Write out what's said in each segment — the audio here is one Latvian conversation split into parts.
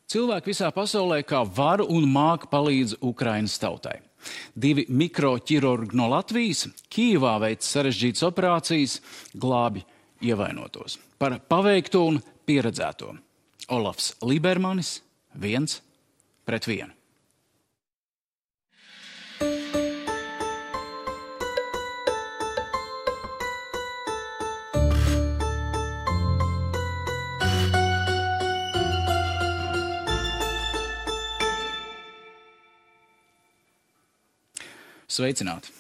Cilvēki visā pasaulē kā var un māk palīdz Ukrainas tautai. 2 mikroķirurgi no Latvijas Kijevā veic sarežģītas operācijas, glābi ievainotos. Par paveikto un pieredzēto. Olafs Libermanis 1-1. Sveicināti!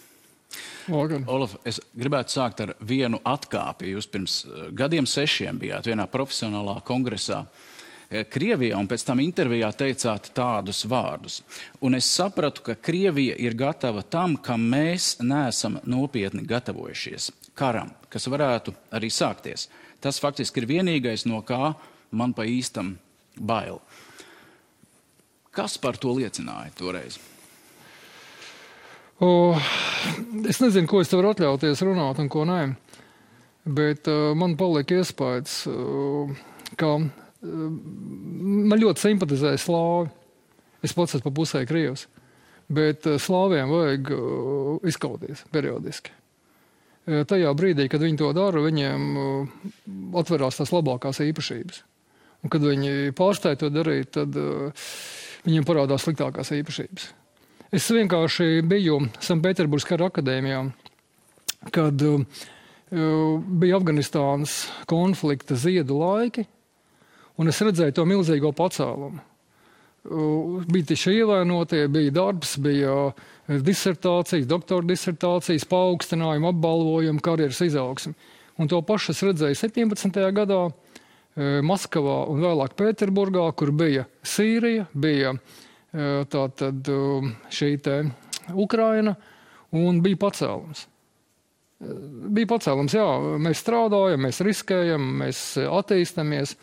Olaf, es gribētu sākt ar vienu atkāpi. Jūs pirms gadiem 6 bijāt vienā profesionālā kongresā Krievijā un pēc tam intervijā teicāt tādus vārdus. Un es sapratu, ka Krievija ir gatava tam, kam mēs neesam nopietni gatavojušies. Karam, kas varētu arī sākties. Tas faktiski ir vienīgais, no kā man pa īstam bail. Kas par to liecināja toreiz? Es nezinu, ko es te varu atļauties runāt un ko nē, bet man palika iespējas, ka man ļoti simpatizēja slāvi. Es pats esmu pa pusē krievs, bet slāviem vajag izkauties periodiski. Tajā brīdī, kad viņi to dara, viņiem atverās tās labākās īpašības. Un kad viņi pārstāja to darīt, tad viņiem parādās sliktākās īpašības. Es vienkārši biju Sanktpēterburgas kara akadēmijā, kad bija Afganistānas konflikta ziedu laiki, un es redzēju to milzīgo pacēlumu. Bija tieši ievainotie, bija darbs, bija disertācijas, doktora disertācijas, paaugstinājumi, apbalvojumi, karjeras izaugsmi. Un to pašu es redzēju 17. gadā Maskavā un vēlāk Pēterburgā, kur bija Sīrija, bija tātad šī te Ukraina, un bija pacēlums. Bija pacēlums, jā, mēs strādājam, mēs riskējam, mēs attīstamies,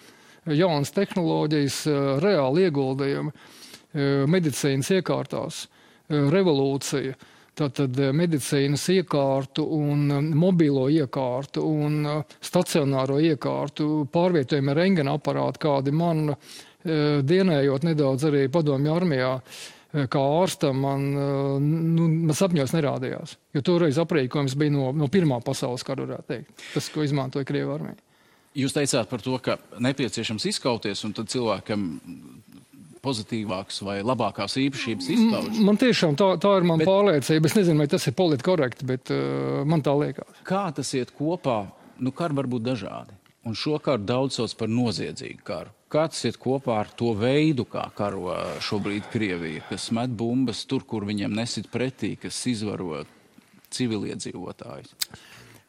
jaunas tehnoloģijas, reāli ieguldījumi, medicīnas iekārtās, revolūcija, tātad medicīnas iekārtu un mobilo iekārtu un stacionāro iekārtu, pārvietojumi rentgena aparāti, kādi man dienējot nedaudz arī padomju armijā, kā ārstam, man sapņos nerādījās. Jo toreiz aprīkojums bija no Pirmā pasaules kara, varētu teikt. Tas, ko izmantoja Krievu armija. Jūs teicāt par to, ka nepieciešams izkauties, un tad cilvēkam pozitīvāks vai labākās īpašības izpauž. Man tiešām tā ir man pārliecība. Es nezinu, vai tas ir politkorekti, bet man tā liekas. Kā tas iet kopā? Kari var būt dažādi. Un šo karu daudz sauc par noziedzīgu karu. Kā tas iet kopā ar to veidu, kā karo šobrīd Krievija, kas met bumbas tur, kur viņiem nesit pretī, kas izvaro civiliedzīvotājus?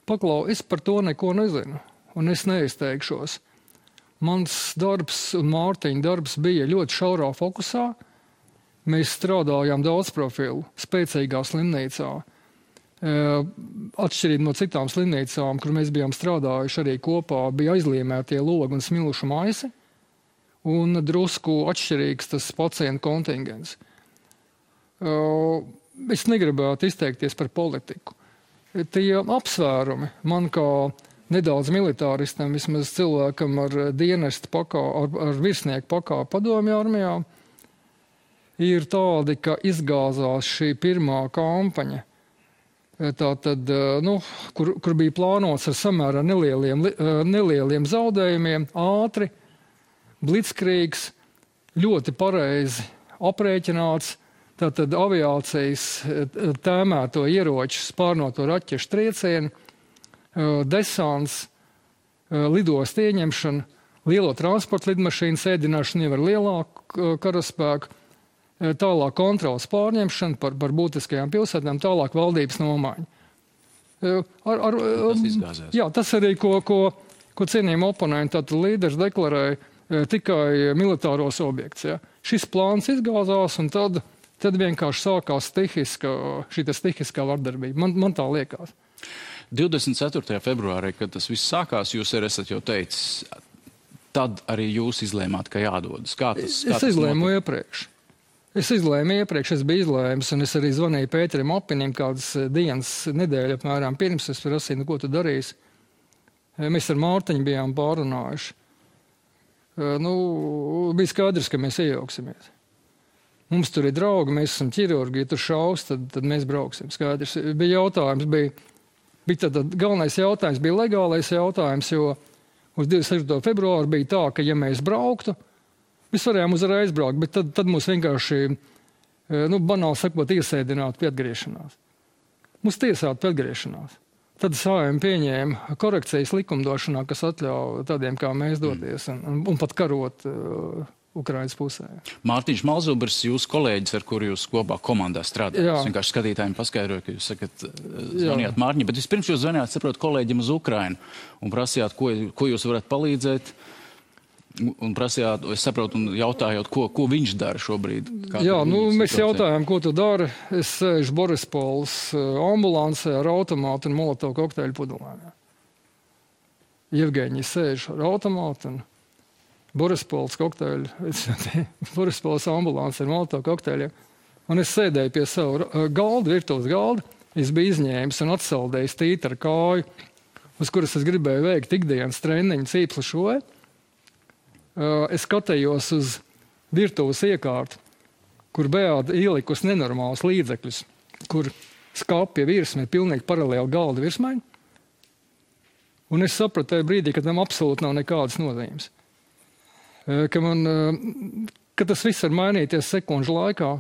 Paklau, es par to neko nezinu, un es neizteikšos. Mans darbs un Mārtiņa darbs bija ļoti šaurā fokusā. Mēs strādājām daudz profilu, spēcīgā slimnīcā. Atšķirīgi no citām slimnīcām, kur mēs bijām strādājuši arī kopā, bija aizliemētie logi un smilšu maisi, un drusku atšķirīgs tas pacientu kontingents. Es negribētu izteikties par politiku. Tie apsvērumi man kā nedaudz militāristam, vismaz cilvēkam ar dienestu ar virsnieku pakāpi padomju armijā, ir tādi, ka izgāzās šī pirmā kampaņa, tātad, kur bija plānots ar samērā nelieliem zaudējumiem, ātri, blitzkrīgs, ļoti pareizi aprēķināts, tātad aviācijas tēmēto ieroču, spārnoto raķešu triecienu, desants, lidostu ieņemšana, lielo transporta lidmašīnu sēdināšanu jau ar lielāku karaspēku, tālāk kontrolas pārņemšana par būtiskajām pilsētām, tālāk valdības nomaiņa. Tas izgāzās. Jā, tas arī, ko cienījumi oponenti, tātad līderis deklarēja tikai militāros objekts. Ja. Šis plāns izgāzās, un tad vienkārši sākās stihiskā vardarbība. Man tā liekas. 24. februārī, kad tas viss sākās, jūs arī esat jau teicis, tad arī jūs izlēmāt, ka jādodas. Es izlēmu iepriekš. Es biju izlēmis, un es arī zvanīju Pēterim Apinim kādas dienas, nedēļa apmēram pirms, es prasīju, ko tu darīsi. Mēs ar Mārtiņu bijām pārunājuši. bija skaidrs, ka mēs iejauksimies. Mums tur ir draugi, mēs esam ķirurgi, ja tur šaus, tad mēs brauksim. Skaidrs. Bija jautājums, bija galvenais jautājums, bija legālais jautājums, jo uz 26. februāru bija tā, ka ja mēs brauktu, mēs varējām uzreiz braukt, bet tad mūs vienkārši, banāli sakot, iesēdinātu pie atgriešanās. Mūs tiesātu pie atgriešanās. Tad Saeima pieņēma korekcijas likumdošanā, kas atļauj tādiem kā mēs doties un pat karot Ukrainas pusē. Mārtiņš Malzubers, jūsu kolēģis, ar kuru jūs kopā komandā strādājat. Es vienkārši skatītājiem paskaidroju, ka jūs sakat, zvanījāt Mārtiņam, bet vispirms jūs zvanījāt, saprot, kolēģim uz Ukrainu un prasījāt, ko jūs varat palīdzēt. Un prasījāt, es saprotu, un jautājot, ko viņš dara šobrīd. Mēs jautājām, ko tu dari. Es sēžu Borispols ambulansē ar automātu un molotovu kokteļu pudelēm. Jevgeņi sēž ar automātu un Borispols kokteļu, Borispols ambulansē ar molotovu kokteļiem. Un es sēdēju pie savu galdu, virtuves galdu. Es biju izņēmis un atsaldējis tīti ar kāju, uz kuras es gribēju veikt ikdienas treniņu cīpslu šoju. Es skatījos uz virtuves iekārtu, kur Beāta ielikus nenormālus līdzekļus, kur skapja virsme ir pilnīgi paralēli galda virsmai. Un es sapratu tajā brīdī, ka tam absolūti nav nekādas nozīmes. Ka tas viss var mainīties sekundžu laikā.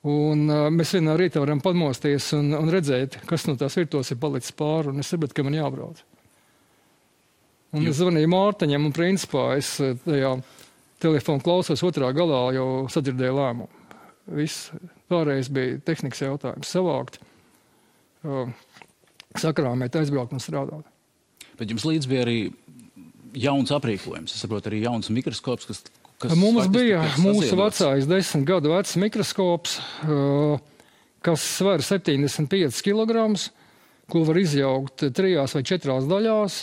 Un mēs vienā rītā varam pamosties un redzēt, kas no tās virtuves ir palicis pāri. Un es sapratu, ka man jābrauc. Un es zvanīju Mārtiņam, un principā es tajā telefonu klausos otrā galā jau sadzirdēju lēmumu. Viss pārējais bija tehnikas jautājums savākt, sakrāmēt, aizbraukt un strādāt. Bet jums līdz bija arī jauns aprīkojums, es saprotu, arī jauns mikroskops, kas mums bija mūsu vecais 10 gadu vecs mikroskops, kas sver 75 kilograms, ko var izjaukt 3 vai 4 daļās,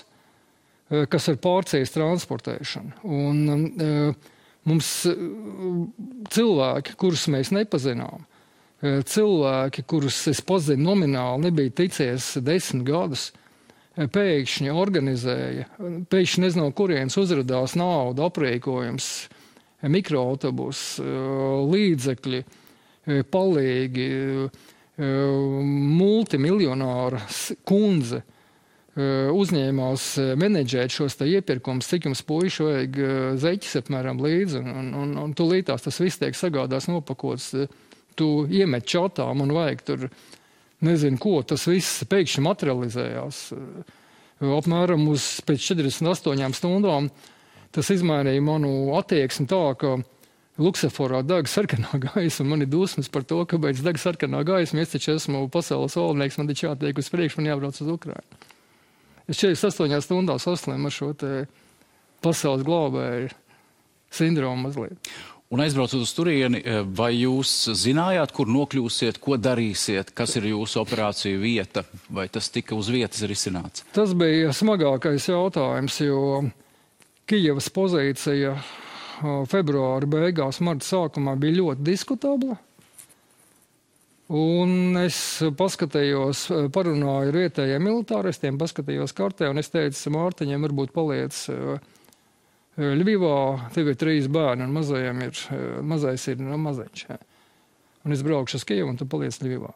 kas ir pārcijas transportēšana. Un mums cilvēki, kurus mēs nepazinām, cilvēki, kurus es pazinu nomināli, nebija ticies 10 gadus, pēkšņi organizēja, pēkšņi nezinu, no kurienes uzradās nauda, aprīkojums, mikroautobus, līdzekļi, palīgi, multimiljonāra kundze, uzņēmās menedžēt šos iepirkumus, cik jums puiši vajag zeķis apmēram līdzi, un tūlītās tas viss tiek sagādās nopakots. Tu iemet čatām un vajag tur, nezinu ko, tas viss pēkšņi materializējās. Apmēram pēc 48 stundām tas izmainīja manu attieksmi tā, ka lukseforā deg sarkanā gaisa, un man ir dusmas par to, kāpēc deg sarkanā gaisa, es taču esmu pasaules valdnieks, man taču jātiek uz priekšu, man jābrauc uz Ukrainu. Es 48 stundās saslimu ar šo te pasaules glābēju sindromu mazliet. Un aizbraucot uz turieni, vai jūs zinājāt, kur nokļūsiet, ko darīsiet, kas ir jūsu operāciju vieta, vai tas tika uz vietas risināts? Tas bija smagākais jautājums, jo Kijevas pozīcija februāra beigās, marta sākumā bija ļoti diskutabla. Un es paskatījos, parunāju ar vietējiem militāristiem, paskatījos kartē, un es teicu Mārtiņiem, varbūt paliec Ļvivā, tev ir 3 bērni, un mazais ir maziņš. Un es braukšu uz Kijevu, un tu paliec Ļvivā.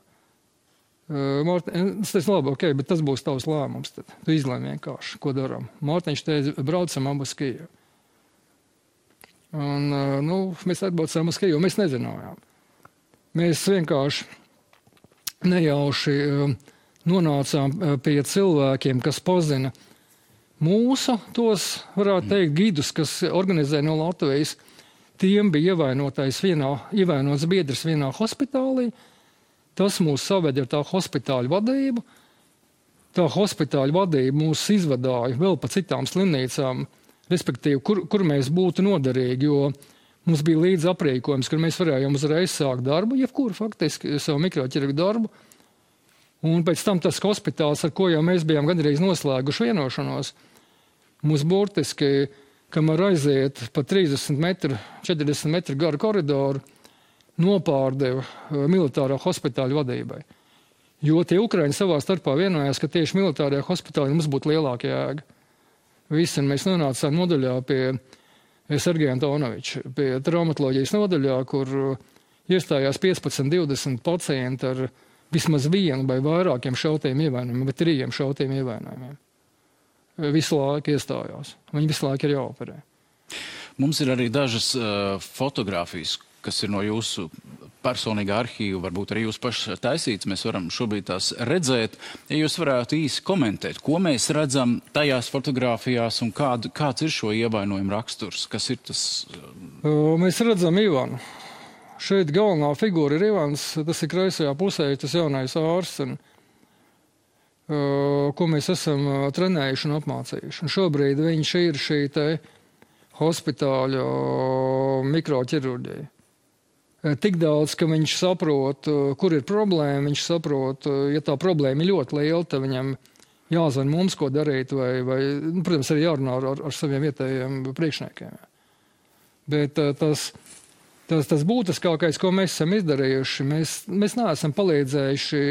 Es teicu, labi, ok, bet tas būs tavs lēmums. Tad. Tu izlēmi vienkārši, ko darām. Mārtiņš teica, braucam abi uz Kijevu. Un, mēs atbraucām uz Kijevu, mēs nezinājām. Mēs vienkārši nejauši nonācām pie cilvēkiem, kas pazina mūsu, tos, varētu teikt, gidus, kas organizē no Latvijas. Tiem bija ievainots biedrs vienā hospitālī. Tas mūs saved ar tā hospitāļu vadību. Tā hospitāļu vadība mūs izvadāja vēl pa citām slimnīcām, respektīvi, kur mēs būtu noderīgi, jo mums bija līdz aprīkojums, kur mēs varējām uzreiz sākt darbu, jebkuru faktiski savu mikroķirurgu darbu. Un pēc tam tas hospitāls, ar ko jau mēs bijām gandrīz noslēguši vienošanos, mums burtiski, kamēr aiziet pa 30 metru, 40 metru garu koridoru, nopārdeva militārā hospitāļa vadībai. Jo tie Ukraiņi savā starpā vienojās, ka tieši militārajā hospitālī mums būtu lielāka jēga. Visi mēs nonācām nodaļā pie Sergeju Antonoviču pie traumatoloģijas nodaļā, kur iestājās 15-20 pacienti ar vismaz vienu vai vairākiem šautiem ievainojumiem, bet 3 šautiem ievainojumiem. Visu laiku iestājās. Viņi visu laiku ir jāoperē. Mums ir arī dažas fotogrāfijas, kas ir no jūsu personīgā arhīva, varbūt arī jūs paši taisīts. Mēs varam šobrīd tās redzēt. Ja jūs varētu īsi komentēt, ko mēs redzam tajās fotogrāfijās un kāds ir šo ievainojumu raksturs? Kas ir tas? Mēs redzam Ivanu. Šeit galvenā figūra ir Ivans, tas ir kreisajā pusē, tas jaunais ārsts, ko mēs esam trenējuši un apmācījuši. Un šobrīd viņš ir šī te hospitāļa mikroķirurģija. Tik daudz, ka viņš saprot, kur ir problēma, viņš saprot, ja tā problēma ir ļoti liela, tad viņam jāzvan mums, ko darīt, vai protams, arī jārunā ar saviem vietējiem priekšniekiem. Bet tas būtiskākais, ko mēs esam izdarījuši, mēs neesam palīdzējuši,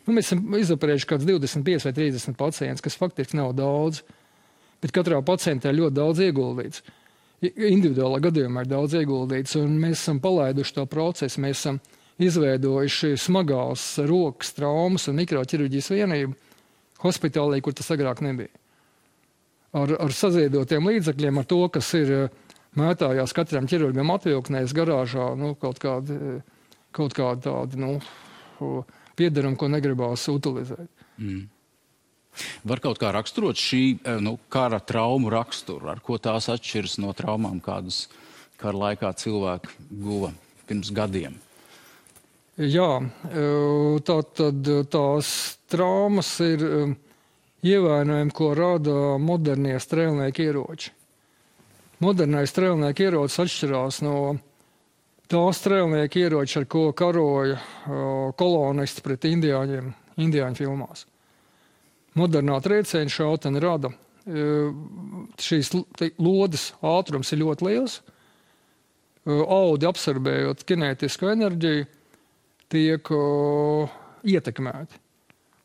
mēs esam izoperējuši kāds 25 vai 30 pacients, kas faktiski nav daudz, bet katrā pacientā ļoti daudz ieguldīts. Individuālā gadījumā ir daudz ieguldīts, un mēs esam palaiduši to procesu, mēs esam izveidojuši smagās rokas traumas un mikroķirurģijas vienību hospitālī, kur tas agrāk nebija. Ar saziedotiem līdzekļiem, ar to, kas ir mētājās katram ķirurgam atvilknēs garāžā, kaut kādi tādi, piederumi, ko negribās utilizēt. Var kaut kā raksturot šī kara traumu raksturu, ar ko tās atšķiras no traumām, kādas kara laikā cilvēki guva pirms gadiem? Jā, tātad tās traumas ir ievainojumi, ko rada modernie strēlnieku ieroči. Modernais strēlnieku ierocis atšķirās no tā strēlnieku ieroči, ar ko karoja kolonisti pret indiāņu filmās. Modernā trieciena šautene rada. Šīs lodes ātrums ir ļoti liels. Audi absorbējot kinētisku enerģiju, tiek ietekmēti.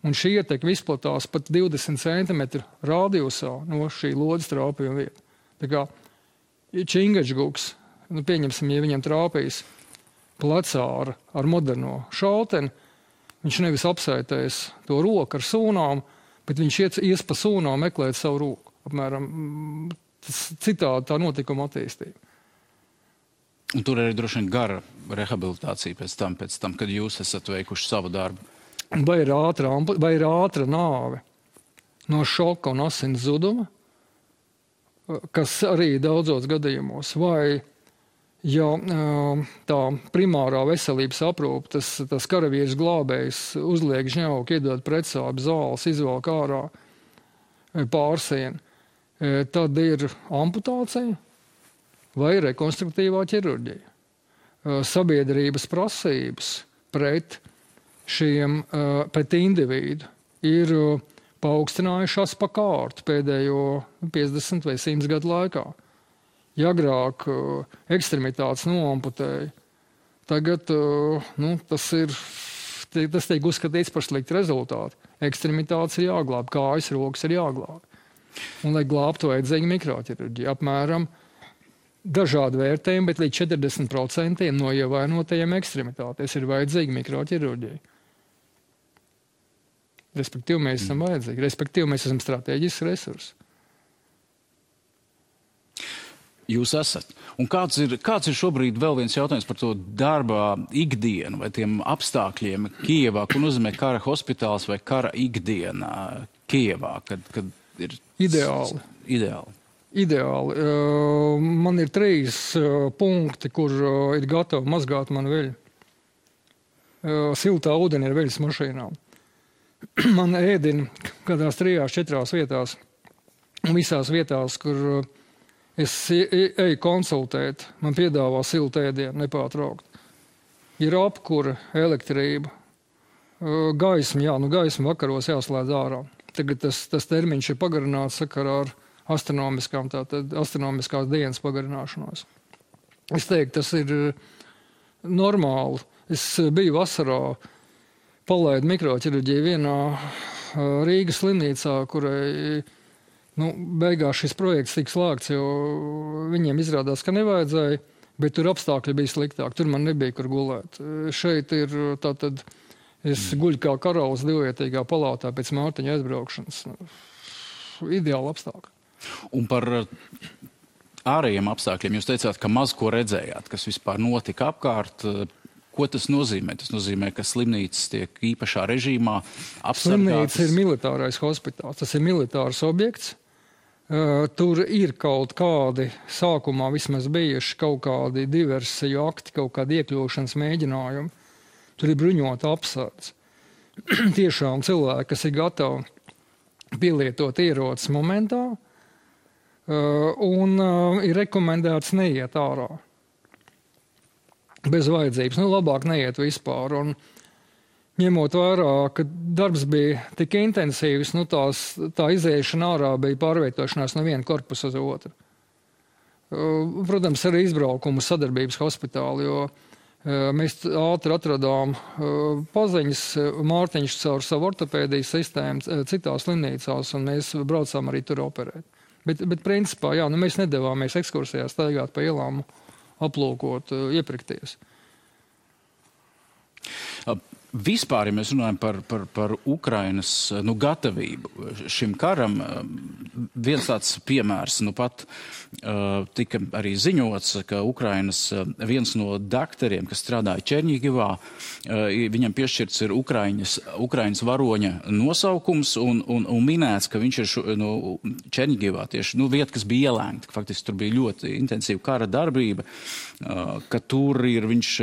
Un šī ietekme izplatās pat 20 cm radiusā no šī lodes trāpījuma vieta. Tā kā Čingačguks, pieņemsim, ja viņam trāpīs plecā ar moderno šauteni, viņš nevis apsētēs to roku ar sūnām, bet viņš ies pa sūnām meklēt savu roku. Apmēram citādi tā notikuma attīstība. Un tur arī droši vien gara rehabilitācija pēc tam, kad jūs esat veikuši savu darbu. Vai ir ātra nāve no šoka un asins zuduma, kas arī daudzos gadījumos, vai ja tā primārā veselības aprūpe, tas karavīrs glābējs uzliek žņauku, iedod pretsāpju zāles, izvelk ārā pārsienu, tad ir amputācija vai rekonstruktīvā ķirurģija. Sabiedrības prasības pret individu ir paaugstinājušās pa kārtu pēdējo 50 vai 100 gadu laikā. Ja agrāk ekstremitātes noamputēja, tagad tas tiek uzskatīts par sliktu rezultātu. Ekstremitātes ir jāglāb, kājas, rokas ir jāglāb. Un, lai glābtu, vajadzīga mikroķirurģija. Apmēram dažādi vērtējumi, bet līdz 40% no ievainotajiem ekstremitātēs ir vajadzīga mikroķirurģija. Respektīvi, mēs esam vajadzīgi. Respektīvi, mēs esam strateģisks resurss. Jūs esat. Un kāds ir šobrīd vēl viens jautājums par to darba ikdienu vai tiem apstākļiem Kijevā, ko nozīmē kara hospitāls vai kara ikdiena Kijevā, kad ir Ideāli. Man ir 3 punkti, kur ir gatavi mazgāt man veļu. Siltā ūdeni ir veļas mašīnām. Man ēdina kādās 3-4 vietās, un visās vietās, kur es eju konsultēt, man piedāvā siltu ēdienu nepārtraukt. Ir apkure, elektrība, gaisma, gaisma vakaros jāslēdz ārā. Tagad tas termiņš ir pagarināts sakarā ar astronomiskās dienas pagarināšanos. Es teiktu, tas ir normāli. Es biju vasarā, palaidu mikroķirurģiju vienā Rīgas slimnīcā, kurai Beigās šis projekts tika slēgts, jo viņiem izrādās, ka nevajadzēja, bet tur apstākļi bija sliktāk. Tur man nebija, kur gulēt. Šeit ir tātad, es guļu kā karalis divvietīgā palātā pēc Mārtiņa aizbraukšanas. Ideāli apstākļi. Un par ārējiem apstākļiem jūs teicāt, ka maz ko redzējāt, kas vispār notika apkārt. Ko tas nozīmē? Tas nozīmē, ka slimnīcas tiek īpašā režīmā apsargātas. Slimnīca ir militārais hospitāls. Tas ir militārs objekts. Tur ir kaut kādi, sākumā vismaz bijuši kaut kādi diversiju akti, kaut kādi iekļūšanas mēģinājumi. Tur ir bruņota apsardze. Tiešām cilvēki, kas ir gatavi pielietot ierocis momentā, un ir rekomendēts neiet ārā. Bez vajadzības. Labāk neiet vispār. Un ņemot vērā, ka darbs bija tik intensīvs, tā izēšana ārā bija pārvietošanās no viena korpusa uz otru. Protams, arī izbraukumu sadarbības hospitāli, jo mēs ātri atradām paziņas, Mārtiņš caur savu ortopēdijas sistēmu citās slimnīcās, un mēs braucām arī tur operēt. Bet principā, mēs nedavāmies ekskursijā staigāt pa ielām, aplūkot, iepirkties. Vispār, ja mēs runājam par Ukrainas gatavību šim karam, viens tāds piemērs, pat tika arī ziņots, ka Ukrainas viens no daktariem, kas strādāja Černigivā, viņam piešķirts ir Ukrainas varoņa nosaukums un minēts, ka viņš ir Černigivā tieši vieta, kas bija ielēgta. Faktiski tur bija ļoti intensīva kara darbība, ka tur ir viņš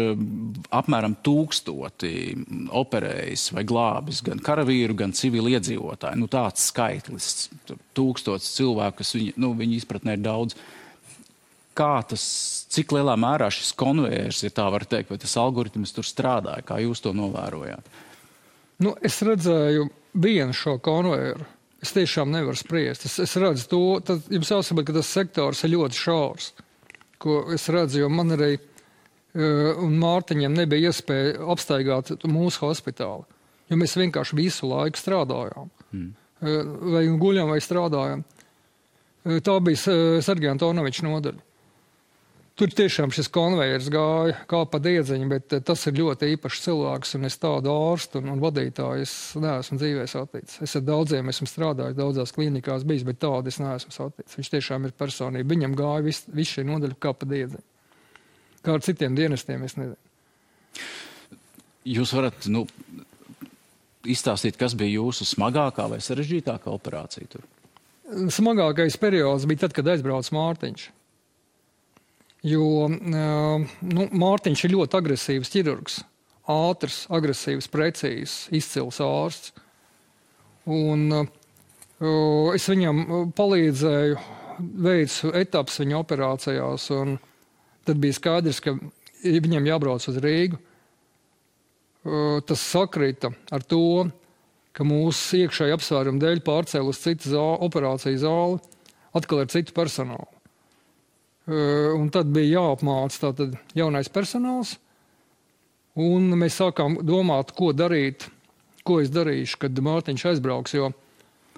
apmēram 1000 operējis vai glābis gan karavīru, gan civili iedzīvotāji. Tāds skaitlis, 1000 cilvēku, kas viņa izpratnē ir daudz. Cik lielā mērā šis konvejers, ja tā var teikt, vai tas algoritms tur strādāja, kā jūs to novērojāt? Es redzēju vienu šo konvejeru. Es tiešām nevaru spriest. Es redzu to, jums jāsaprot, ka tas sektors ir ļoti šaurs, ko es redzu, jo man arī un Mārtiņam nebija iespēja apstaigāt mūsu hospitāli, jo mēs vienkārši visu laiku strādājām. Vai guļam, vai strādājām. Tā bija Sergeja Antonoviča nodaļa. Tur tiešām šis konvejers gāja kā pa diedziņu, bet tas ir ļoti īpašs cilvēks, un es tādu ārstu un vadītāju es neesmu dzīvē saticis. Es ar daudziem esmu strādājis, daudzās klīnikās bijis, bet tādu es neesmu saticis. Viņš tiešām ir personība. Viņam gāja viss šī nodaļa kā pa diedziņu. Kā ar citiem dienestiem, es nezinu. Jūs varat izstāstīt, kas bija jūsu smagākā vai sarežģītākā operācija tur? Smagākais periods bija tad, kad aizbrauca Mārtiņš. Jo Mārtiņš ir ļoti agresīvs ķirurgs. Ātrs, agresīvs, precīzs, izcils ārsts. Un es viņam palīdzēju, veicu etapas viņa operācijās, un tad bija skaidrs, ka viņam jābrauc uz Rīgu. Tas sakrita ar to, ka mūsu iekšēji apsvērumu dēļ pārcēla uz citu operāciju zāli, atkal ar citu personālu. Un tad bija jāapmāca tātad jaunais personāls, un mēs sākām domāt, ko darīt, ko es darīšu, kad Mārtiņš aizbrauks, jo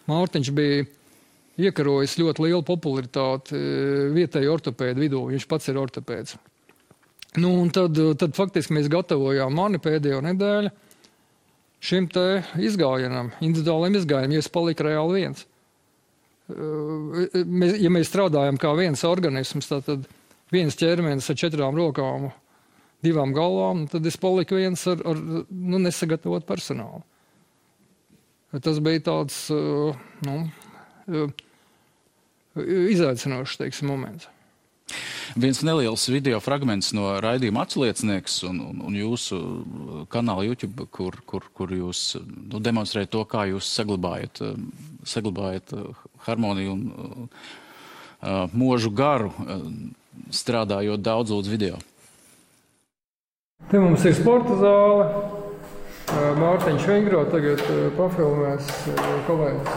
Mārtiņš bija iekarojis ļoti lielu popularitāti vietēju ortopēdu vidū. Viņš pats ir ortopēds. Un tad faktiski mēs gatavojām mani pēdējo nedēļu šim te izgājienam, individuāliem izgājienam, jo es paliku reāli viens. Ja mēs strādājam kā viens organisms, tad viens ķermenis ar 4 rokām, 2 galvām, tad es paliku viens ar nesagatavot personālu. Tas bija tāds izaicinošs, teiksim, moments. Viens neliels video fragments no raidījuma Atsliecinieks un jūsu kanāla YouTube, kur jūs demonstrējat to, kā jūs saglabājat harmoniju un mūžu garu, strādājot daudzlūdz video. Te mums ir sporta zāle. Mārtiņš Vingro tagad pafilmēs kolēģis.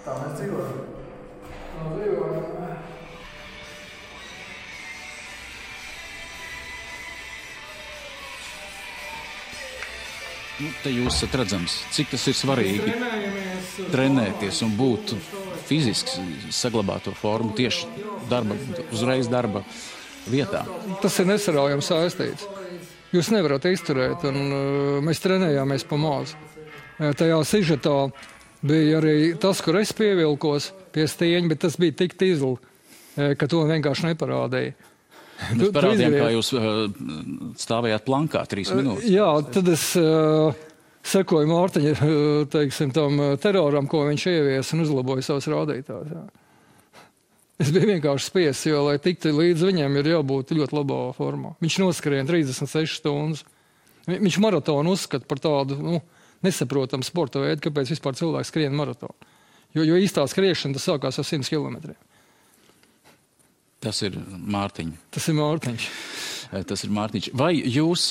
Tā mēs dzīvojam. Te jūs esat redzams, cik tas ir svarīgi trenēties un būt fiziski, saglabāt to formu tieši uzreiz darba vietā. Tas ir nesaraujami saistīts. Jūs nevarat izturēt, un mēs trenējāmies pa maz. Tajā sižetā bija arī tas, kur es pievilkos pie stieņa, bet tas bija tik tizli, ka to vienkārši neparādīja. Mēs parādījām, kā jūs stāvējāt plankā 3 minūtes. Jā, tad es sekoju Mārtiņa, teiksim, tam teroram, ko viņš ievies un uzlaboja savus rādītājus. Jā. Es biju vienkārši spiests, jo, lai tiktu līdz viņam, ir jābūt ļoti labā formā. Viņš noskrien 36 stundas. Viņš maratonu uzskata par tādu, nesaprotamu sporta veidu, kāpēc vispār cilvēks skrien maratonu. Jo īstā skriešana tas sākās ar 100 kilometriem. Tas ir Mārtiņš. Tas ir Mārtiņš. Tas ir Mārtiņš. Vai jūs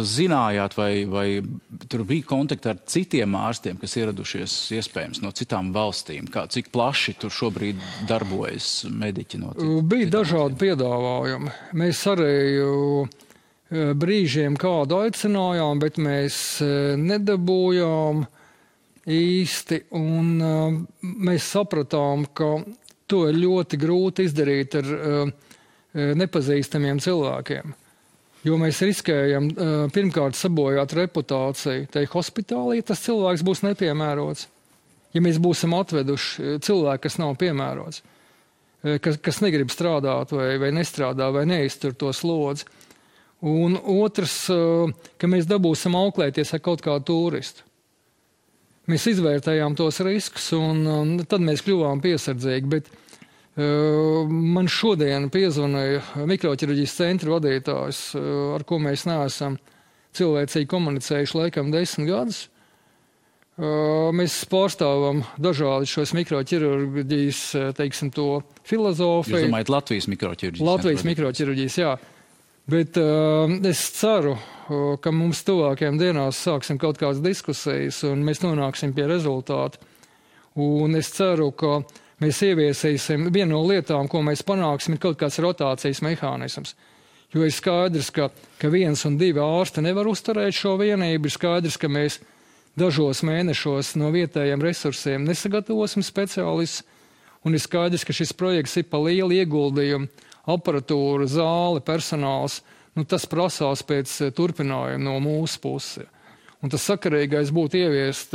zinājāt, vai tur bija kontakti ar citiem ārstiem, kas ieradušies iespējams no citām valstīm? Cik plaši tur šobrīd darbojas mediķi no citām? Bija dažādi piedāvājumi. Mēs arī brīžiem kādu aicinājām, bet mēs nedabūjām īsti. Un mēs sapratām, ka to ir ļoti grūti izdarīt ar nepazīstamiem cilvēkiem. Jo mēs riskējam pirmkārt sabojāt reputāciju. Te hospitālī tas cilvēks būs nepiemērots. Ja mēs būsim atveduši cilvēku, kas nav piemērots, kas negrib strādāt vai nestrādā vai neiztur to slodzi. Un otrs, ka mēs dabūsim auklēties ar kaut kādu turistu. Mēs izvērtējām tos riskus, un tad mēs kļuvām piesardzīgi. Bet man šodien piezvanīja mikroķirurģijas centra vadītājs, ar ko mēs neesam cilvēcīgi komunicējuši laikam 10 gadus. Mēs pārstāvam dažādi šos mikroķirurģijas, teiksim, to filozofiju. Jūs domājat Latvijas mikroķirurģijas? Latvijas mikroķirurģijas, jā. Bet es ceru, ka mums tuvākajām dienās sāksim kaut kādas diskusijas un mēs nonāksim pie rezultātu. Un es ceru, ka mēs ieviesīsim vienu no lietām, ko mēs panāksim, ir kaut kāds rotācijas mehānisms. Jo ir skaidrs, ka 1 un 2 ārsti nevar uzturēt šo vienību. Ir skaidrs, ka mēs dažos mēnešos no vietējiem resursiem nesagatavosim speciālistus. Un ir skaidrs, ka šis projekts ir pa lielu ieguldījumu. Aparatūra, zāle, personāls, tas prasās pēc turpinājuma no mūsu puses. Un tas sakarīgais būtu ieviest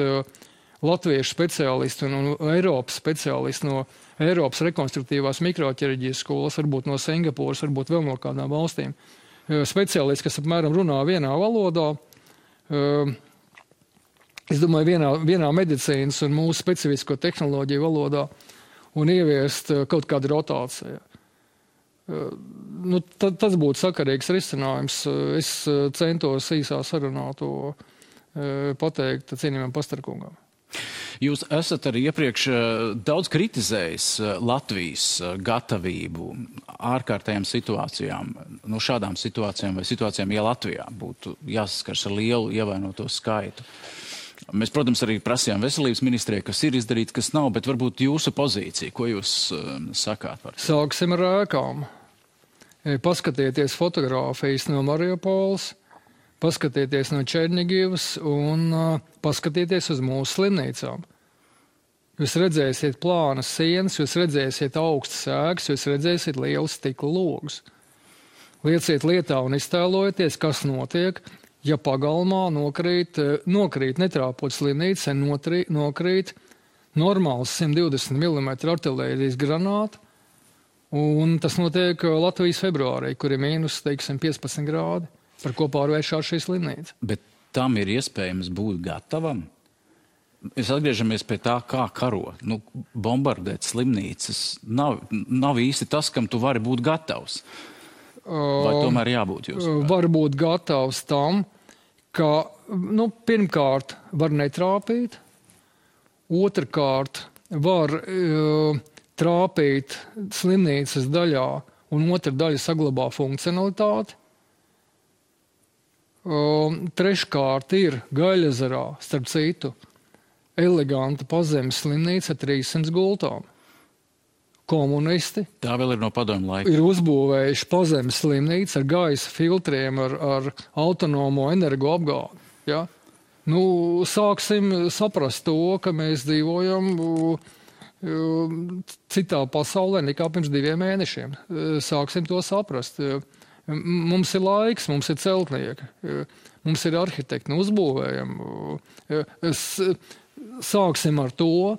latviešu speciālistu un Eiropas speciālistu no Eiropas rekonstruktīvās mikroķirurģijas skolas, varbūt no Singapūras, varbūt vēl no kādām valstīm. Speciālisti, kas apmēram runā vienā valodā, es domāju, vienā medicīnas un mūsu specifisko tehnoloģiju valodā un ieviest kaut kādu rotāciju. Tas būtu sakarīgs risinājums. Es centos īsā sarunā to pateikt cienījumam Pastarkungam. Jūs esat arī iepriekš daudz kritizējis Latvijas gatavību ārkārtējām situācijām. No šādām situācijām vai situācijām, ja Latvijā būtu jāsaskars ar lielu ievainoto skaitu. Mēs, protams, arī prasījām veselības ministrijai, kas ir izdarīts, kas nav, bet varbūt jūsu pozīcija, ko jūs sakāt par to? Sāksim ar ēkām. Paskatieties fotogrāfijas no Mariupoles, paskatieties no Černigivas un paskatieties uz mūsu slimnīcām. Jūs redzēsiet plānas sienas, jūs redzēsiet augstas ēkas, jūs redzēsiet lielus stikla logus. Lieciet lietā un iztēlojieties, kas notiek, ja pagalmā nokrīt netrāpot slimnīca, nokrīt normāls 120 mm artilērijas granāta, un tas notiek Latvijas februārī, kur ir mīnus, teiksim, 15 grādi, par ko pārvēršās šī slimnīca. Bet tam ir iespējams būt gatavam? Mēs atgriežamies pie tā, kā karo. Bombardēt slimnīcas nav īsti tas, kam tu vari būt gatavs. Vai tomēr jābūt jūs? Var būt gatavs tam, ka pirmkārt var netrāpīt, otrkārt var trāpīt slimnīcas daļā un otra daļa saglabā funkcionalitāti. Treškārt ir Gaļezerā, starp citu, eleganta pazemes slimnīca ar 300 gultām. Komunisti tā vēl ir no padomju laika. Ir uzbūvējuši pazemes slimnīcu ar gaisa filtriem, ar autonomo energoapgādi. Ja? Sāksim saprast to, ka mēs dzīvojam citā pasaulē nekā pirms 2 mēnešiem. Sāksim to saprast. Mums ir laiks, mums ir celtnieki, mums ir arhitekti, uzbūvējam. Sāksim ar to,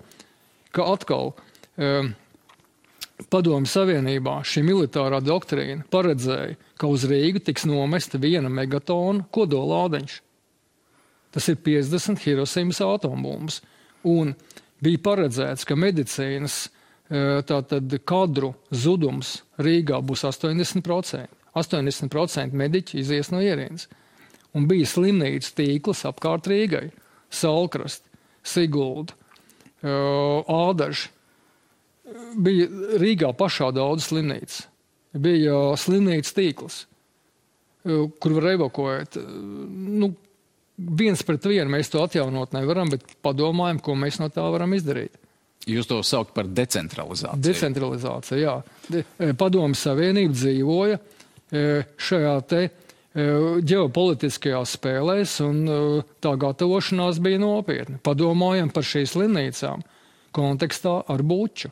ka atkal Padomju Savienībā šī militārā doktrīna paredzēja, ka uz Rīgu tiks nomesta 1 megatona kodolādeņš. Tas ir 50 Hirosimas atombumbas. Un bija paredzēts, ka medicīnas kadru zudums Rīgā būs 80%. 80% mediķi izies no ierīnas. Un bija slimnīcu tīkls apkārt Rīgai. Salkrast, Sigulda, Ādaži. Bija Rīgā pašā daudz slimnīcas. Bija slimnīcu tīkls, kur var evakuēt. 1 pret 1 mēs to atjaunot nevaram, bet padomājam, ko mēs no tā varam izdarīt. Jūs to saukt par decentralizāciju. Decentralizācija, jā. Padomju Savienība dzīvoja šajā te ģeopolitiskajās spēlēs, un tā gatavošanās bija nopietna. Padomājam par šīs slimnīcām kontekstā ar Buču,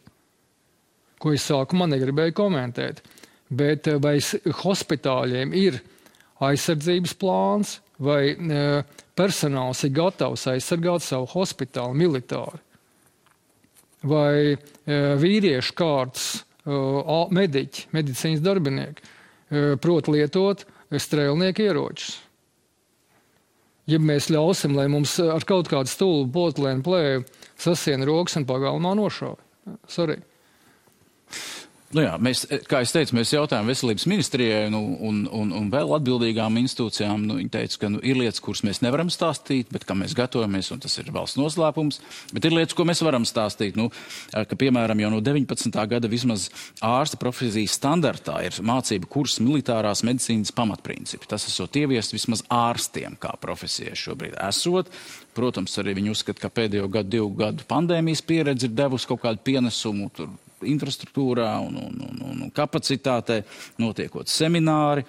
ko es sākumā negribēju komentēt. Bet vai hospitāļiem ir aizsardzības plāns, vai personāls ir gatavs aizsargāt savu hospitālu militāri? Vai vīriešu kārtas mediķi, medicīnas darbinieki prot lietot strēlnieku ieročus? Ja mēs ļausim, lai mums ar kaut kādu stulbu potlēnu plēju sasiena rokas un pagalmā nošauj. Sorry. Jā, kā es teicu, mēs jautājām veselības ministrijai un vēl atbildīgām institūcijām. Viņi teica, ka ir lietas, kuras mēs nevaram stāstīt, bet kā mēs gatavojamies, un tas ir valsts noslēpums. Bet ir lietas, ko mēs varam stāstīt. Ka, piemēram, jau no 19. gada vismaz ārsta profesijas standartā ir mācība kurs militārās medicīnas pamatprincipi. Tas esot ieviest vismaz ārstiem kā profesijai šobrīd esot. Protams, arī viņi uzskata, ka pēdējo 2 gadu pandēmijas pieredze ir devusi kaut kādu pienesumu infrastruktūrā un kapacitātē, notiekot semināri,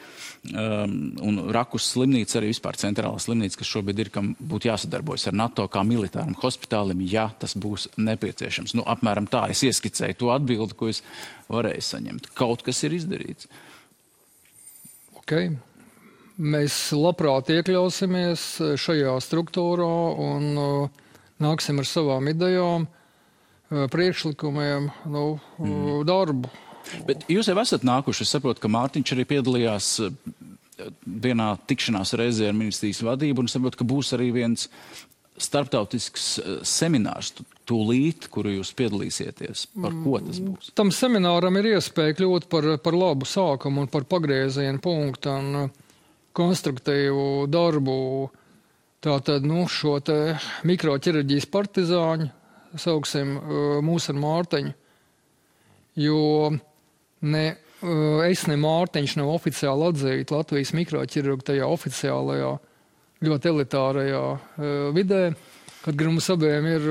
un Rakus slimnīca, arī vispār centrālā slimnīca, kas šobrīd ir, kam būtu jāsadarbojas ar NATO kā militāram hospitālim, ja tas būs nepieciešams. Apmēram tā es ieskicēju to atbildi, ko es varēju saņemt. Kaut kas ir izdarīts. Ok. Mēs labprāt iekļausimies šajā struktūrā un nāksim ar savām idejām, priekšlikumiem, darbu. Bet jūs jau esat nākuši, es saprotu, ka Mārtiņš arī piedalījās vienā tikšanās reizē ar ministrijas vadību, un saprotu, ka būs arī viens starptautisks seminārs tūlīt, kuru jūs piedalīsieties. Par ko tas būs? Tam semināram ir iespēja kļūt par labu sākumu un par pagriezienu punktu un konstruktīvu darbu. Tātad, šo te mikroķirurģijas partizāņu sauksim mūs ar Mārtiņu, jo es ne Mārtiņš nav oficiāli atzīti Latvijas mikroķirurgu tajā oficiālajā, ļoti elitārajā vidē, kad mums abiem ir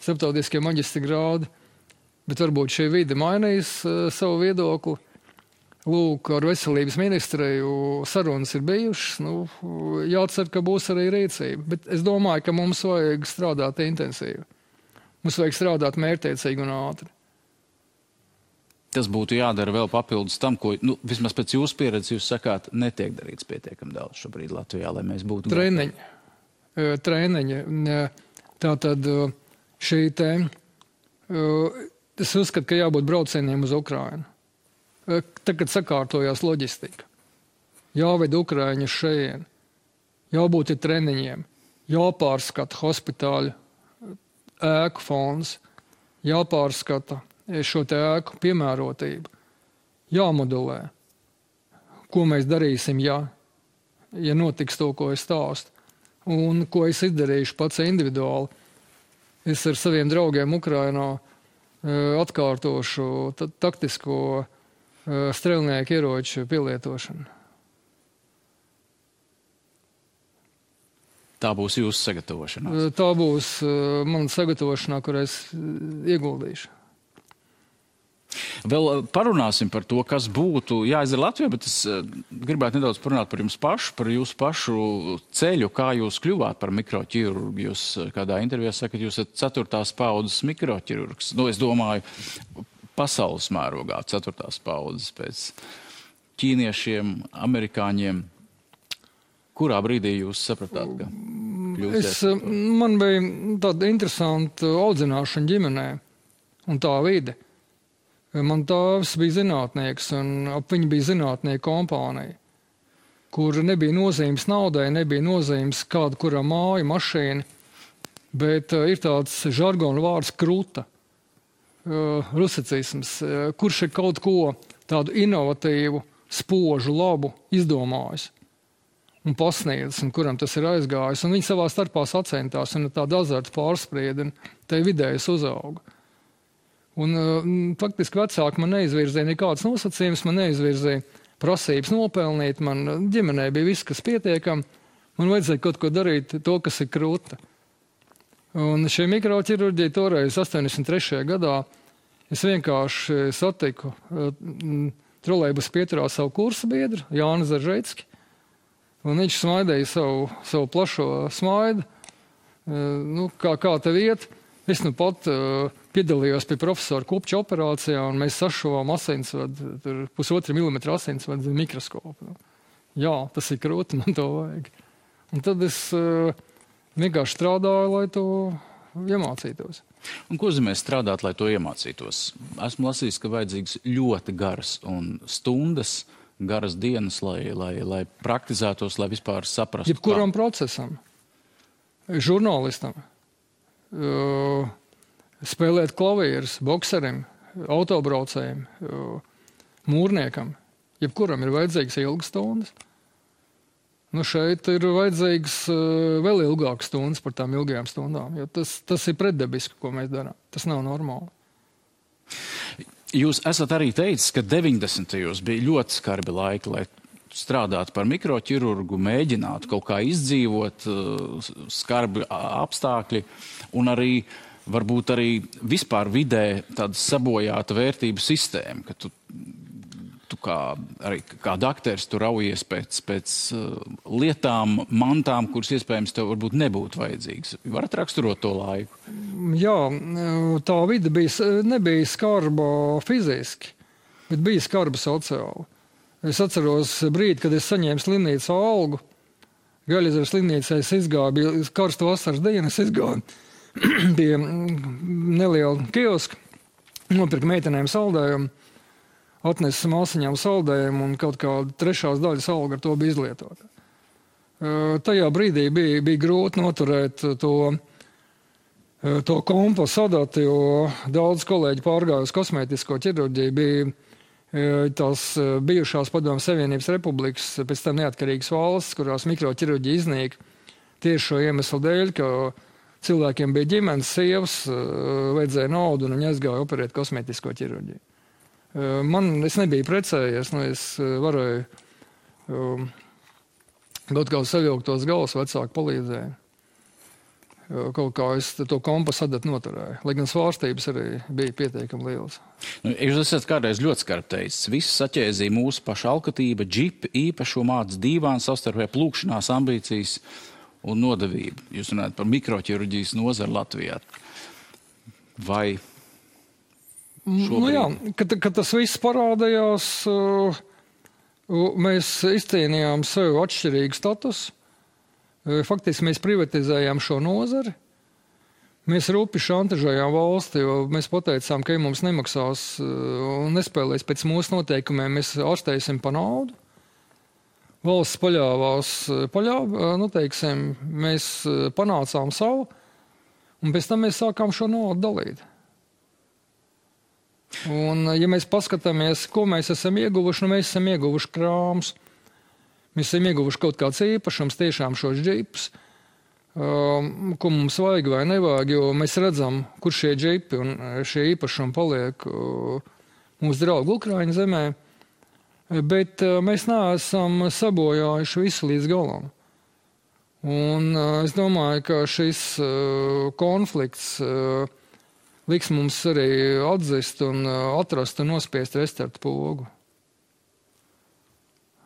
starptautiskie maģistra grādi, bet varbūt šī vide mainīs savu viedokli. Lūk, ar veselības ministriju sarunas ir bijušas, jācer, ka būs arī rīcība, bet es domāju, ka mums vajag strādāt intensīvi. Mums vajag strādāt mērķtiecīgi un ātri. Tas būtu jādara vēl papildus tam, ko, vismaz pēc jūsu pieredzes, jūs sakāt, netiek darīts pietiekami daudz šobrīd Latvijā, lai mēs būtu... Treniņi. Tātad šī te... Es uzskatu, ka jābūt braucieniem uz Ukrainu. Tagad sakārtojās loģistika. Jāved Ukraiņu šeit. Jābūt ir treniņiem. Jāpārskata hospitāļu ēku fonds, jāpārskata šo te ēku piemērotību, jāmodulē, ko mēs darīsim, ja notiks to, ko es stāstu, un ko es izdarīšu pats individuāli. Es ar saviem draugiem Ukrainā atkārtošu taktisko strēlnieku ieroču pielietošanu. Tā būs jūsu sagatavošanās? Tā būs mana sagatavošanā, kur es ieguldīšu. Vēl parunāsim par to, kas būtu jāizdara Latvijā, bet es gribētu nedaudz parunāt par jums pašu, par jūsu pašu ceļu, kā jūs kļuvāt par mikroķirurgu. Jūs kādā intervijā sakat, jūs esat 4. paudzes mikroķirurgs. Nu, es domāju, pasaules mērogā 4. paudzes pēc ķīniešiem, amerikāņiem. Kurā brīdī jūs sapratāt, ka kļūsiet? Man bija tāda interesanta audzināšana ģimenē un tā vide. Man tēvs bija zinātnieks, un ap viņu bija zinātnieku kompānija, kur nebija nozīmes naudai, nebija nozīmes kāda, kurā māja, mašīna, bet ir tāds žargona vārds kruta, rusicisms, kurš ir kaut ko tādu inovatīvu, spožu, labu izdomājis un pasniedzis, un kuram tas ir aizgājis. Un viņi savā starpā sacentās, un tāda azarta pārsprieda, un te vidējais uzauga. Un faktiski vecāki man neizvirzīja nekādas nosacījumus, man neizvirzīja prasības nopelnīt, man ģimenē bija viss, kas pietiekam, man vajadzēja kaut ko darīt, to, kas ir krūta. Un šī mikroķirurģija toreiz 83. gadā es vienkārši satiku trolejbus pieturā savu kursa biedru, Jāni Zaržecki, un viņš smaidēja savu plašo smaidu, kā tev iet. Es nu pat piedalījos pie profesora Kupča operācijā, un mēs sašuvām asinsvadu, 1,5 milimetra asinsvadu mikroskopu. Jā, tas ir krūti, man to vajag. Un tad es vienkārši strādāju, lai to iemācītos. Un ko nozīmē strādāt, lai to iemācītos? Esmu lasījis, ka vajadzīgs ļoti garas un stundas, garas dienas, lai praktizētos, lai vispār saprastu. Jebkuram procesam, žurnālistam, spēlēt klavierus, bokserim, autobraucējiem, mūrniekam. Jebkuram ir vajadzīgs ilgas stundas. Nu šeit ir vajadzīgs vēl ilgākas stundas par tām ilgajām stundām, jo tas ir pretdabiski, ko mēs darām. Tas nav normāli. Jūs esat arī teicis, ka 90. bija ļoti skarbi laiki, lai strādāt par mikroķirurgu, mēģināt kaut kā izdzīvot, skarbi apstākļi un arī varbūt arī vispār vidē tāda sabojāta vērtību sistēma, ka tu kā dakteris tu raujies pēc lietām, mantām, kuras iespējams tev varbūt nebūtu vajadzīgas. Varat raksturot to laiku? Jā, tā vide nebija skarba fiziski, bet bija skarba sociāli. Es atceros brīdi, kad es saņēmu slimnīcā algu. Gaļezeru slimnīcā es izgāju, bija karsta vasaras diena, es izgāju pie neliela kioska, nopirku meitenēm saldējumu, atnesu māsiņām saldējumu un kaut kādu 3. daļas algu ar to bija izlietota. Tajā brīdī bija grūti noturēt to kompasu adatu, jo daudz kolēģi pārgāja uz kosmētisko ķirurģiju, bija tās bijušās Padomju Savienības republikas, pēc tam neatkarīgas valsts, kurās mikroķirurģija iznīka tieši šo iemeslu dēļ, ka cilvēkiem bija ģimenes, sievas, vajadzēja naudu un viņi aizgāja operēt kosmētisko ķirurģiju. Es nebiju precējies, es varēju kaut kā savilkt tos galvas, vecāki palīdzēja. Kaut kā es to kompasu adatu noturēju, lai gan svārstības arī bija pietiekami lielas. Jūs esat kādreiz ļoti skarbi teicis, viss saķēzīja mūsu paša alkatība, džipi, īpašo māc, dīvāns, savstarpēji plūkšanās, ambīcijas un nodevību. Jūs runājat par mikroķirurģijas nozaru Latvijā. Vai šobrīd? Jā, kad tas viss parādījās, mēs izcīnījām sev atšķirīgu statusu. Faktiski mēs privatizējām šo nozari. Mēs rupi šantažējām valsti, jo mēs pateicām, ka ja mums nemaksās un nespēlēs pēc mūsu noteikumiem, mēs ārstēsim pa naudu. Valsts paļāvās, mēs panācām savu, un pēc tam mēs sākām šo naudu dalīt. Un, ja mēs paskatāmies, ko mēs esam ieguvuši, mēs esam ieguvuši krāmus. Mēs esam ieguvuši kaut kāds īpašums, tiešām šos džipus, ko mums vajag vai nevajag, jo mēs redzam, kur šie džipi un šie īpašumi paliek mūsu draugu Ukraiņu zemē, bet mēs neesam sabojājuši visu līdz galam. Un es domāju, ka šis konflikts liks mums arī atzist un atrast un nospiest restarta pogu.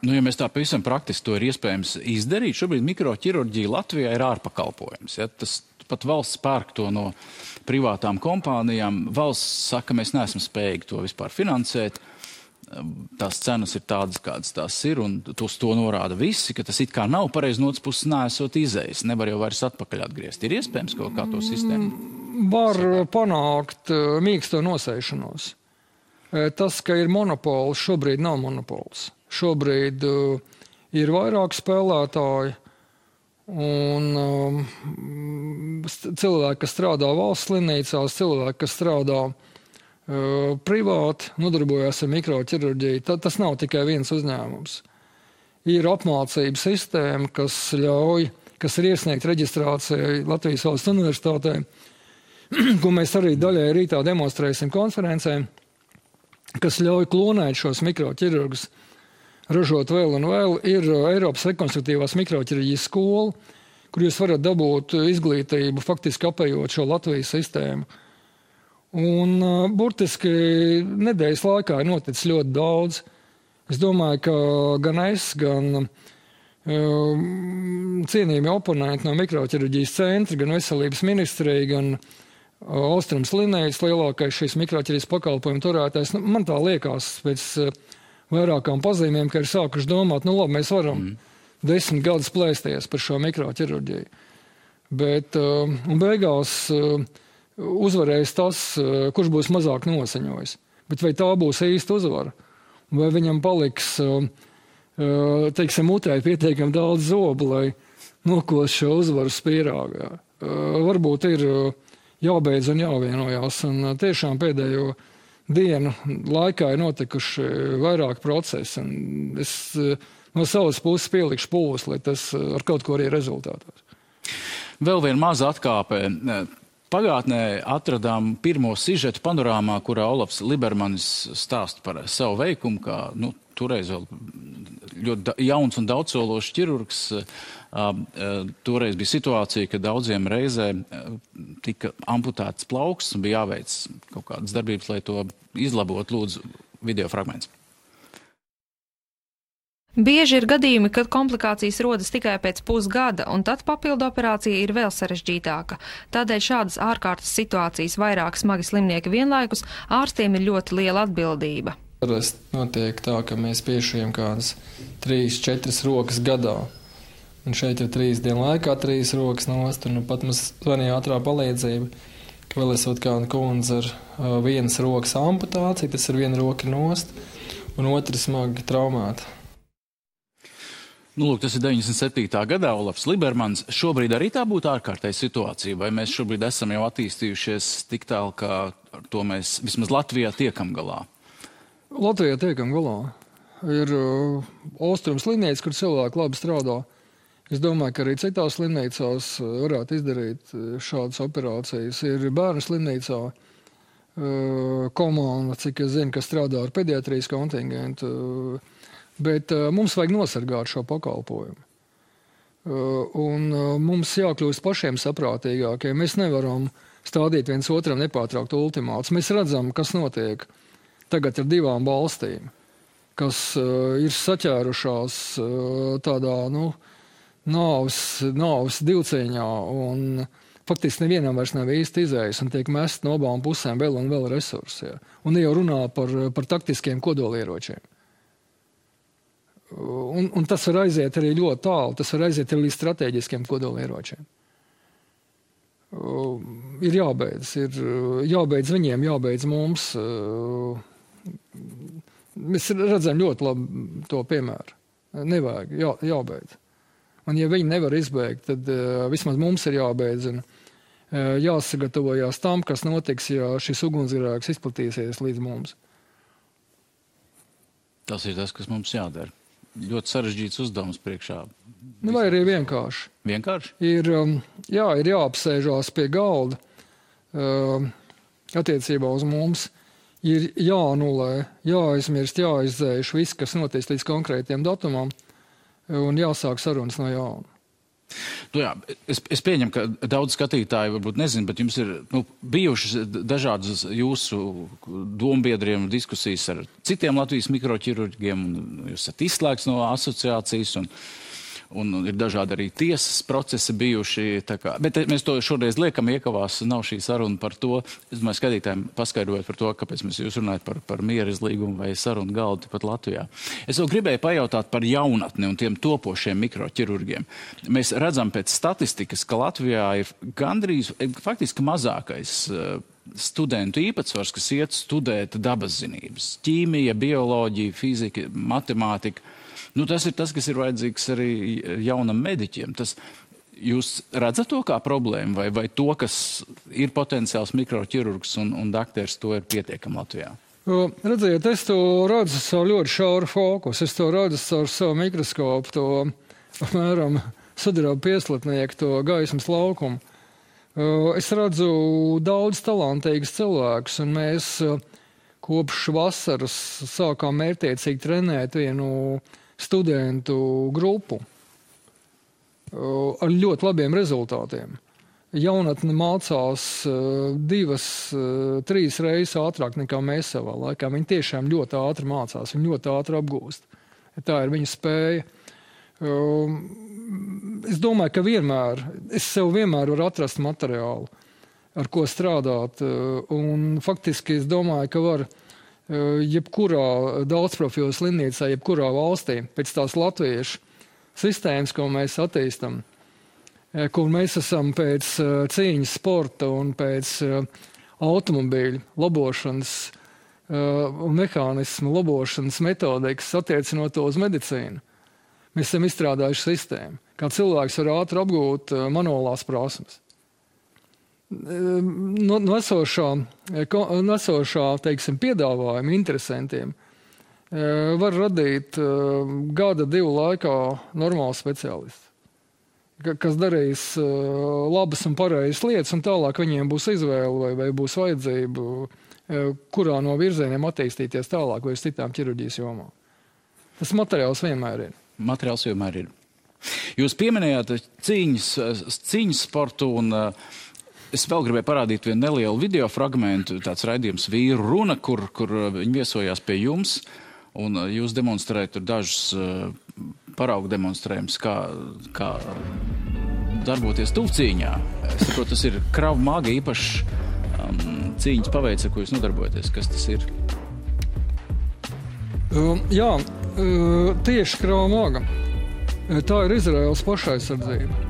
Nu, ja mēs tā pavisam praktiski to ir iespējams izdarīt, šobrīd mikroķirurģija Latvijā ir ārpakalpojums. Ja? Tas pat valsts pērk to no privātām kompānijām. Valsts saka, mēs neesam spējīgi to vispār finansēt. Tās cenas ir tādas, kādas tās ir, un uz to norāda visi, ka tas it kā nav pareizi, no otras puses neesot izējis. Nevar jau vairs atpakaļ atgriezt. Ir iespējams kaut kā to sistēmu? Var panākt mīksto nosēšanos. Tas, ka ir monopols, šobrīd nav monopols. Šobrīd ir vairāk spēlētāji un cilvēki, kas strādā valsts slimnīcās, cilvēki, kas strādā privāti, nodarbojas ar mikroķirurģiju. Tas nav tikai viens uzņēmums. Ir apmācība sistēma, kas ir iesniegt reģistrācijai Latvijas Valsts Universitātē, ko mēs arī daļai rītā demonstrēsim konferencē, kas ļauj klonēt šos mikroķirurgus, ražot vēl un vēl. Ir Eiropas rekonstruktīvās mikroķirurģijas skola, kur jūs varat dabūt izglītību, faktiski apējot šo Latvijas sistēmu. Un burtiski nedēļas laikā ir noticis ļoti daudz. Es domāju, ka gan es, gan cienījami oponenti no mikroķirurģijas centra, gan veselības ministrija, gan Austrums Linējas, lielākais šīs mikroķirurģijas pakalpojumu turētājs. Man tā liekas pēc vairākām pazīmēm, ka ir sākuši domāt, nu labi, mēs varam 10 gadus plēsties par šo mikroķirurģiju. Bet un beigās uzvarēs tas, kurš būs mazāk nosaņojis. Bet vai tā būs īsta uzvara? Vai viņam paliks, teiksim, mutē pietiekami daudz zobu, lai nokos šo uzvaru spīrāgā? Varbūt ir jābeidz un jāvienojās. Un tiešām pēdējo dienu laikā ir notikuši vairāk procesi, un es no savas puses pielikšu pūles, lai tas ar kaut ko arī rezultātos. Vēl viena maza atkāpe. Pagātnē atradām pirmo sižetu panorāmā, kurā Olafs Libermanis stāsta par savu veikumu, kā toreiz vēl ļoti jauns un daudzsološs ķirurgs. Toreiz bija situācija, ka daudziem reizē tika amputēts plauks un bija jāveic kaut kādas darbības, lai to izlabot. Lūdzu, video fragments. Bieži ir gadījumi, kad komplikācijas rodas tikai pēc pusgada, un tad papildu operācija ir vēl sarežģītāka. Tādēļ šādas ārkārtas situācijas vairāk smagi slimnieki vienlaikus ārstiem ir ļoti liela atbildība. Parasti notiek tā, ka mēs piešujam kādas 3-4 rokas gadā. Un šeit ir 3 dienu laikā 3 rokas nost, un pat mums zvanīja ātrā palīdzība, ka vēl esot kāda kundze ar vienas rokas amputāciju, tas ir viena roka nost, un otra smagi traumēta. Lūk, tas ir 97. gadā Olafs Libermans. Šobrīd arī tā būtu ārkārtēja situācija, vai mēs šobrīd esam jau attīstījušies tik tālu, ka ar to mēs vismaz Latvijā tiekam galā? Latvijā tiekam galā. Ir Austrums Linējas, kur cilvēki labi strādā. Es domāju, ka arī citās slimnīcās varētu izdarīt šādas operācijas. Ir bērnu slimnīcā komanda, cik es zinu, kas strādā ar pediatrijas kontingentu. Bet mums vajag nosargāt šo pakalpojumu. Un mums jākļūst pašiem saprātīgākiem. Mēs nevaram stādīt viens otram nepārtraukt ultimātus. Mēs redzam, kas notiek tagad ar 2 valstīm, kas ir saķērušās tādā, nāves divcīņā, un faktiski nevienam vairs nav īsti izējas, un tiek mest no abām pusēm vēl un vēl resursi. Ja. Un jau runā par taktiskiem kodolieročiem. Un tas var aiziet arī ļoti tālu, tas var aiziet arī līdz strateģiskiem kodolieročiem. Ir jābeidz viņiem, jābeidz mums. Mēs redzam ļoti labi to piemēru. Nevajag, jābeidz. Un ja viņi nevar izbeigt, tad vismaz mums ir jābeidz un jāsagatavojās tam, kas notiks, ja šis ugunsgrēks izplatīsies līdz mums. Tas ir tas, kas mums jādara. Ļoti sarežģīts uzdevums priekšā. Vai arī vienkārši. Vienkārši? Ir jāapsēžās pie galda attiecībā uz mums. Ir jāanulē, jāaizmirst, jāizdzēš viss, kas notiek līdz konkrētiem datumam, un jāsāk sarunas no jauna. Jā, es pieņemu, ka daudz skatītāju varbūt nezinu, bet jums ir bijušas dažādas jūsu dombiedriem diskusijas ar citiem Latvijas mikroķirurģiem, un jūs esat izslēgts no asociācijas, un ir dažādi arī tiesas procesi bijuši. Bet mēs to šoreiz liekam iekavās, nav šī saruna par to. Es domāju, skatītājiem paskaidrojot par to, kāpēc mēs jūs runājat par miera izlīgumu vai sarunu galdu pat Latvijā. Es vēl gribēju pajautāt par jaunatni un tiem topošiem mikroķirurgiem. Mēs redzam pēc statistikas, ka Latvijā ir gandrīz, faktiski mazākais studentu īpatsvars, kas iet studēt dabas zinības. Ķīmija, bioloģija, fizika, matemātika. Tas ir tas, kas ir vajadzīgs arī jaunam mediķiem. Jūs redzat to kā problēmu vai to, kas ir potenciāls mikroķirurgs un dakteris, to ir pietiekami Latvijā? Redziet, es to redzu savu ļoti šauru fokusu. Es to redzu ar savu mikroskopu, to apmēram sudraba pieslatnieku, to gaismas laukumu. Es redzu daudz talantīgus cilvēkus, un mēs kopš vasaras sākām mērķtiecīgi trenēt vienu studentu grupu ar ļoti labiem rezultātiem. Jaunatne mācās 2-3 reizes ātrāk nekā mēs savā laikā. Viņi tiešām ļoti ātri mācās, viņi ļoti ātri apgūst. Tā ir viņa spēja. Es domāju, ka es sev vienmēr varu atrast materiālu, ar ko strādāt. Un faktiski es domāju, ka var jebkurā daudzprofilu slimnīcā, jebkurā valstī, pēc tās latviešu sistēmas, ko mēs attīstam, kur mēs esam pēc cīņas sporta un pēc automobīļu labošanas un mehānismu labošanas metodikas attiecinot to uz medicīnu. Mēs esam izstrādājuši sistēmu, kā cilvēks var ātri apgūt manuālās prasmes. Nesošā, teiksim, piedāvājuma interesantiem var radīt 1-2 laikā normālu speciālistu, kas darīs labas un pareizas lietas, un tālāk viņiem būs izvēle vai būs vajadzība, kurā no virzieniem attīstīties tālāk vai uz citām ķirurģijas jomām. Tas materiāls vienmēr ir. Materiāls vienmēr ir. Jūs pieminējāt cīņas sportu un es vēl gribēju parādīt vienu nelielu video fragmentu, tāds raidījums Vīru runa, kur viņi viesojās pie jums, un jūs demonstrējat tur dažus paraugu demonstrējumus, kā darboties tuvcīņā. Es saprotu, tas ir Krav Maga īpašs cīņas paveids, ar ko jūs nodarbojaties. Kas tas ir? Tieši Krav Maga. Tā ir Izraēlas pašaizsardzība.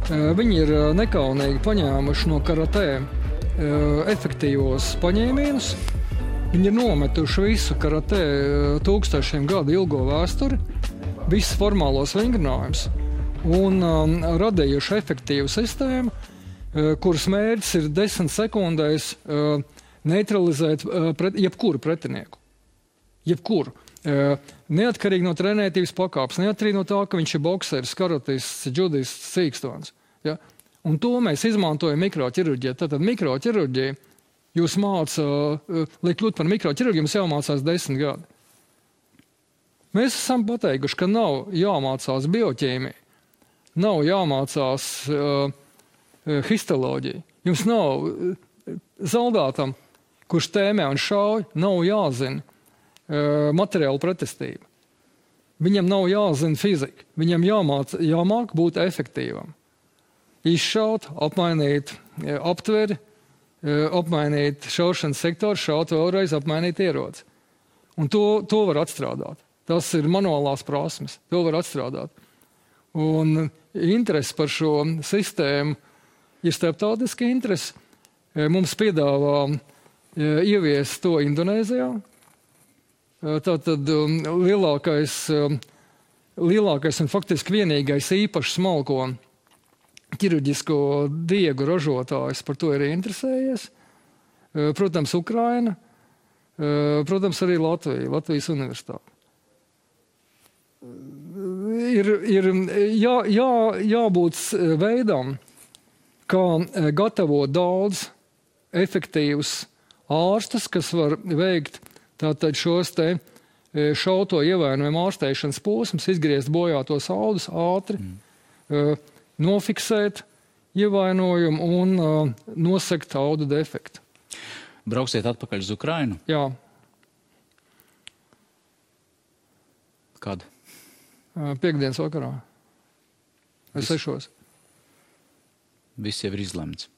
Viņi ir nekaunīgi paņēmuši no karatē efektīvos paņēmienus. Viņi ir nometuši visu karatē 1000 gadu ilgo vēsturi, visus formālos vingrinājumus un radījuši efektīvu sistēmu, kuras mērķis ir 10 sekundēs neutralizēt jebkuru pretinieku. Jebkuru. Neatkarīgi no trenētības pakāpes, neatkarīgi no tā, ka viņš ir bokseris, karatists, džudists, cīkstons. Ja? Un to mēs izmantojam mikroķirurģijā. Tātad mikroķirurģija jūs māca, lai kļūt par mikroķirurģiju, jums jāmācās 10 gadi. Mēs esam pateikuši, ka nav jāmācās bioķīmija, nav jāmācās histoloģija. Jums nav zaldātam, kurš tēmē un šauj, nav jāzina materiāla pretestība. Viņam nav jāzina fizika, viņam jāmāk būt efektīvam. Izšaut, apmainīt aptveri, apmainīt šaušanas sektoru, šaut vēlreiz, apmainīt ieroci. Un to var atstrādāt. Tas ir manuālās prasmes, to var atstrādāt. Un interesi par šo sistēmu ir starptautiski interesi. Mums piedāvā ieviest to Indonēzijā. Tātad lielākais un faktiski vienīgais īpašs smalko ķirurģisko diegu ražotājs par to ir interesējies. Protams, Ukraina, protams, arī Latvija, Latvijas universitāte. Ir jābūt veidam, kā gatavot daudz efektīvus ārstus, kas var veikt tātad šos te šauto ievainojumu ārstēšanas posmus, izgriezt bojātos audus ātri, nofiksēt ievainojumu un nosegt audu defektu. Brauksiet atpakaļ uz Ukrainu? Jā. Kad? Piektdienas vakarā. Vai 6. Viss jau ir izlemts.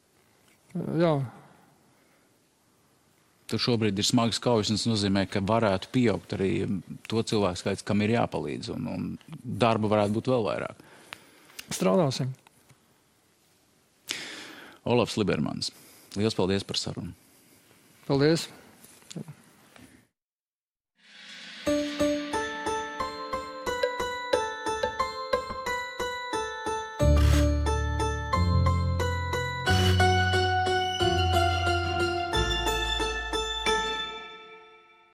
Jā. Tur šobrīd ir smagas kaujas, un tas nozīmē, ka varētu pieaugt arī to cilvēku skaits, kam ir jāpalīdz, un darba varētu būt vēl vairāk. Strādāsim. Olafs Libermans, liels paldies par sarunu. Paldies.